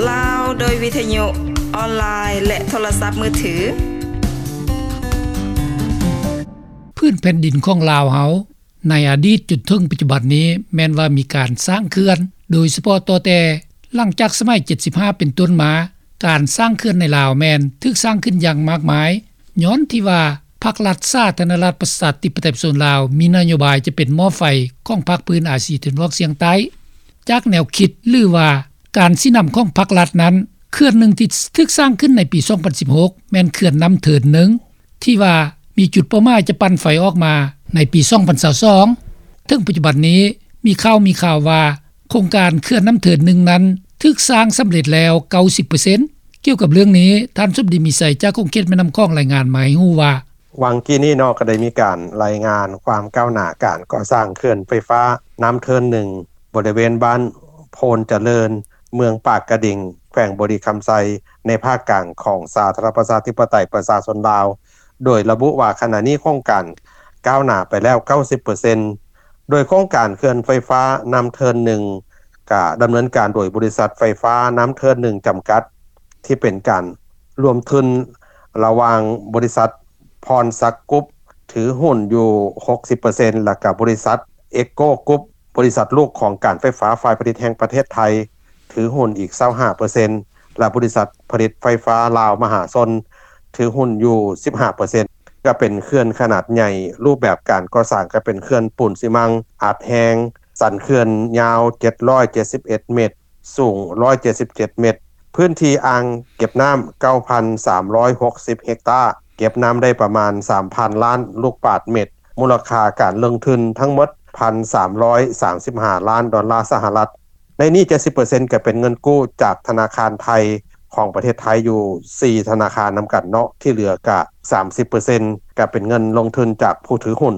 ລາວ ໂດຍວິທະຍຸອອນລາຍ ແລະ ໂທລະສັບມືຖື. ພື້ນແຜ່ນດິນຂອງລາວເຮົາ ໃນອະດີດຈົນເຖິງປັດຈຸບັນນີ້ ແມ່ນວ່າມີການສ້າງເຂື່ອນ, ໂດຍສະເພາະຕໍ່ແຕ່ຫຼັງຈາກສະໄໝເຈັດສິບຫ້າເປັນຕົ້ນມາ, ການສ້າງເຂື່ອນໃນລາວແມ່ນຖືກສ້າງຂຶ້ນຢ່າງມາກມາຍ, ຍ້ອນທີ່ວ່າພັກລັດສາທາລະນະລັດປະຊາທິປະໄຕປະຊາຊົນລາວ ມີນະໂຍບາຍຈະເປັນໝໍ້ໄຟຂອງພາກພື້ນອາຊີຕາເວັນອອກສຽງໃຕ້. ຈາກແນວຄິດ ຫຼືວ່າການຊີ້ນຳຂອງພັກລັດນັ້ນ, ເຂື່ອນໜຶ່ງທີ່ຖືກສ້າງຂຶ້ນໃນປີສອງພັນສິບຫົກ ແມ່ນເຂື່ອນນ້ຳເທີນໜຶ່ງ ທີ່ວ່າມີຈຸດເປົ້າໝາຍຈະປັ່ນໄຟອອກມາໃນປີສອງພັນຊາວສອງ. ເຖິງປັດຈຸບັນນີ້ ມີຂ່າວ ມີຂ່າວວ່າໂຄງການເຂື່ອນນ້ຳເທີນໜຶ່ງນັ້ນ ຖືກສ້າງສຳເລັດແລ້ວເກົ້າສິບເປີເຊັນ. ກ່ຽວກັບເລື່ອງນີ້, ທ່ານສົມດີ ມີໄຊ ຈາກຂົງເຂດແມ່ນ້ຳຂອງ ລາຍງານມາໃຫ້ຮູ້ວ່າ: ຫວ່າງກີ້ນີ້ເນາະ ກໍໄດ້ມີການລາຍງານຄວາມກ້າວໜ້າການກໍ່ສ້າງເຂື່ອນໄຟຟ້ານ້ຳເທີນໜຶ່ງ ບໍລິເວນບ້ານໂພນຈະເລີນ ເມືອງປາກກະດິງ ແຂວງບໍລິຄຳໄຊ ໃນພາກກາງຂອງສາທາລະນະລັດປະຊາທິປະໄຕປະຊາຊົນລາວ, ໂດຍລະບຸວ່າຂະນະນີ້ໂຄງການກ້າວໜ້າໄປແລ້ວເກົ້າສິບເປີເຊັນ. ໂດຍໂຄງການເຂື່ອນໄຟຟ້ານ້ຳເທີນໜຶ່ງ ກະດຳເນີນການໂດຍບໍລິສັດໄຟຟ້ານ້ຳເທີນໜຶ່ງຈຳກັດ ທີ່ເປັນການລວມທຶນລະຫວ່າງບໍລິສັດພອນສັກກຣຸບ ຖືຫຸ້ນຢູ່ຫົກສິບເປີເຊັນ ແລ້ວກະບໍລິສັດເອໂກກຣຸບ ບໍລິສັດລູກຂອງການໄຟຟ້າຝ່າຍຜະລິດແຫ່ງປະເທດໄທ ຖືຫຸ້ນອີກຊາວຫ້າເປີເຊັນ ແລະ ບໍລິສັດຜະລິດໄຟຟ້າລາວມະຫາຊົນ ຖືຫຸ້ນຢູ່ສິບຫ້າເປີເຊັນ. ກໍເປັນເຂື່ອນຂະໜາດໃຫຍ່, ຮູບແບບການກໍ່ສ້າງກໍເປັນເຂື່ອນປູນຊີມັງອັດແຮງ, ສັນເຂື່ອນຍາວເຈັດຮ້ອຍເຈັດສິບເອັດເມັດ, ສູງຮ້ອຍເຈັດສິບເຈັດເມັດ, ພື້ນທີ່ອ່າງເກັບນ້ຳເກົ້າພັນສາມຮ້ອຍຫົກສິບເຮັກຕາ, ເກັບນ້ຳໄດ້ປະມານສາມພັນລ້ານລູກບາດເມັດ, ມູນລະຄ່າການລົງທຶນທັງໝົດພັນສາມຮ້ອຍສາມສິບຫ້າລ້ານດອນລາສະຫະລັດ. ໃນນີ້ເຈັດສິບເປີເຊັນກໍເປັນເງິນກູ້ຈາກທະນາຄານໄທຂອງປະເທດໄທຢູ່ສີ່ທະນາຄານນຳກັນເນາະ, ທີ່ເຫຼືອກະສາມສິບເປີເຊັນກໍເປັນເງິນລົງທຶນຈາກຜູ້ຖືຫຸ້ນ.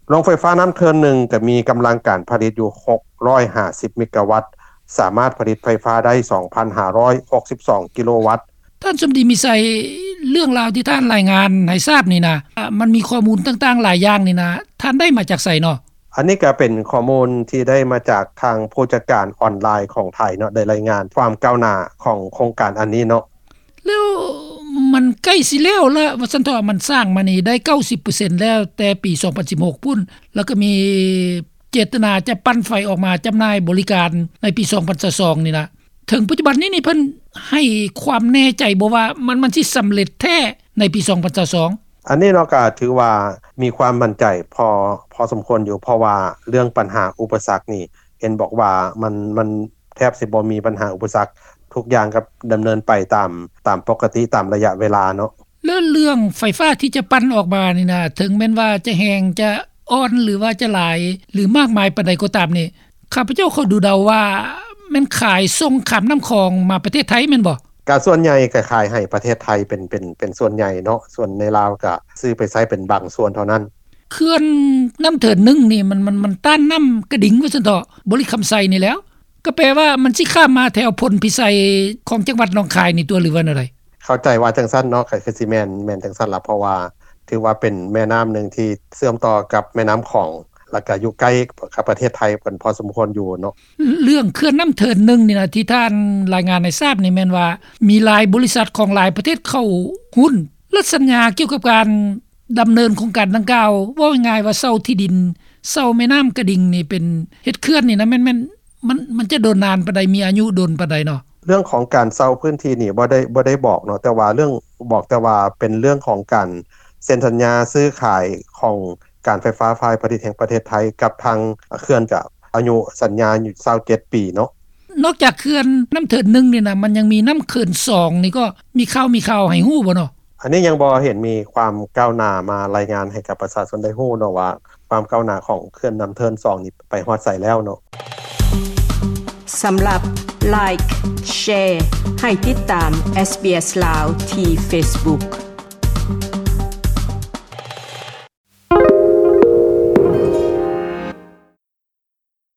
ໂຮງໄຟຟ້ານ້ຳເທີນໜຶ່ງກໍມີກຳລັງການຜະລິດຢູ່ຫົກຮ້ອຍຫ້າສິບເມກາວັດ, ສາມາດຜະລິດໄຟຟ້າໄດ້ສອງພັນຫ້າຮ້ອຍຫົກສິບສອງກິໂລວັດ. ທ່ານສົມດີ ມີໄຊ, ເລື່ອງລາວທີ່ທ່ານລາຍງານໃຫ້ຊາບນີ້ນະ, ມັນມີຂໍ້ມູນຕ່າງໆຫຼາຍຢ່າງນີ້ນະ, ທ່ານໄດ້ມາຈາກໃສເນາະ? ອັນນີ້ກໍເປັນຂໍ້ມູນທີ່ໄດ້ມາຈາກທາງຜູ້ຈັດການອອນລາຍຂອງໄທເນາະ, ໄດ້ລາຍງານຄວາມກ້າວໜ້າຂອງໂຄງການອັນນີ້ເນາະ. ແລ້ວມັນໃກ້ຊິແລ້ວລະ ວ່າຊັ້ນເຖາະ, ມັນສ້າງມານີ້ໄດ້ເກົ້າສິບເປີເຊັນແລ້ວ ແຕ່ປີສອງພັນສິບຫົກພຸ້ນ, ແລ້ວກໍມີເຈດຕະນາຈະປັ່ນໄຟອອກມາຈຳໜ່າຍບໍລິການໃນປີສອງພັນຊາວສອງນີ້ລະ. ເຖິງປັດຈຸບັນນີ້ນີ້ ເພິ່ນໃຫ້ຄວາມແນ່ໃຈບໍ່ວ່າ ມັນ ມັນຊິສຳເລັດແທ້ໃນປີສອງພັນຊາວສອງ? ອັນນີ້ເນາະ ກໍຖືວ່າມີຄວາມໝັ້ນໃຈພໍ ພໍສົມຄວນຢູ່, ເພາະວ່າເລື່ອງບັນຫາອຸປະສັກນີ້ ເຫັນບອກວ່າມັນ ມັນແທບຊິບໍ່ມີບັນຫາອຸປະສັກ, ທຸກຢ່າງກໍດຳເນີນໄປຕາມ ຕາມປົກກະຕິ ຕາມໄລຍະເວລາເນາະ. ແລ້ວເລື່ອງໄຟຟ້າທີ່ຈະປັ່ນອອກມານີ້ນະ, ເຖິງແມ່ນວ່າຈະແຮງ ຈະອ່ອນ ຫຼືວ່າຈະຫຼາຍ ຫຼືມາກມາຍປານໃດກໍຕາມນີ້, ຂ້າພະເຈົ້າຂໍດູເດົາວ່າແມ່ນຂາຍສົ່ງຂ້າມນ້ຳຂອງມາປະເທດໄທແມ່ນບໍ່? ກະສ່ວນໃຫຍ່ກະຂາຍໃຫ້ປະເທດໄທເປັນ ເປັນ ເປັນສ່ວນໃຫຍ່ເນາະ, ສ່ວນໃນລາວກະຊື້ໄປໃຊ້ເປັນບາງສ່ວນເທົ່ານັ້ນ. ເຂື່ອນນ້ຳເທີນໜຶ່ງນີ້ ມັນ ມັນ ມັນຕ້ານນ້ຳກະດິງວ່າຊັ້ນເຖາະ, ບໍລິຄຳໄຊນີ້ແຫຼ້ວ, ກໍແປວ່າມັນຊິຂ້າມມາແຖວພົນພິໄຊຂອງຈັງຫວັດໜອງຄາຍນີ້ຕົວະ ຫຼືວ່າແນວໃດ? ເຂົ້າໃຈວ່າຈັ່ງຊັ້ນເນາະ, ກໍຄືຊິແມ່ນ ແມ່ນຈັ່ງຊັ້ນລະ, ເພາະວ່າຖືວ່າເປັນແມ່ນ້ຳໜຶ່ງທີ່ເຊື່ອມຕໍ່ກັບແມ່ນ້ຳຂອງ ແລ້ວກໍຢູ່ໃກ້ກັບປະເທດໄທເປັນພໍສົມຄວນຢູ່ເນາະ. ເລື່ອງເຂື່ອນນ້ຳເທີນໜຶ່ງນີ້ນະ ທີ່ທ່ານລາຍງານໃຫ້ຊາບນີ້ ແມ່ນວ່າມີຫຼາຍບໍລິສັດຂອງຫຼາຍປະເທດເຂົ້າຫຸ້ນ ແລະ ສັນຍາກ່ຽວກັບການດຳເນີນໂຄງການດັ່ງກ່າວ, ເວົ້າງ່າຍໆວ່າເຊົ່າທີ່ດິນ, ເຊົ່າແມ່ນ້ຳກະດິງນີ້ ເປັນເຮັດເຂື່ອນນີ້ນະ, ແມ່ນ ແມ່ນ ມັນ ມັນຈະດົນນານປານໃດ, ມີອາຍຸດົນປານໃດເນາະ? ເລື່ອງຂອງການເຊົ່າພື້ນທີ່ນີ້ບໍ່ໄດ້ ບໍ່ໄດ້ບອກເນາະ, ແຕ່ວ່າເລື່ອງ ບອກແຕ່ວ່າເປັນເລື່ອງຂອງການເຊັນສັນຍາຊື້ຂາຍຂອງການໄຟຟ້າຝ່າຍຜະລິດແຫ່ງປະເທດໄທກັບທາງເຂື່ອນ ກະອາຍຸສັນຍາຢູ່ຊາວເຈັດປີເນາະ. ນອກຈາກເຂື່ອນນ້ຳເທີນໜຶ່ງນີ້ນະ, ມັນຍັງມີນ້ຳເຂື່ອນສອງນີ້ ກໍມີຂ່າວ ມີຂ່າວໃຫ້ຮູ້ບໍ່ເນາະ? ອັນນີ້ຍັງບໍ່ເຫັນມີຄວາມກ້າວໜ້າມາລາຍງານໃຫ້ກັບປະຊາຊົນໄດ້ຮູ້ເນາະ ວ່າຄວາມກ້າວໜ້າຂອງເຂື່ອນນ້ຳເທີນສອງນີ້ໄປຮອດໃສແລ້ວເນາະ. ສຳລັບ Like Share ໃຫ້ຕິດຕາມ SBS ລາວ ທີ່ Facebook.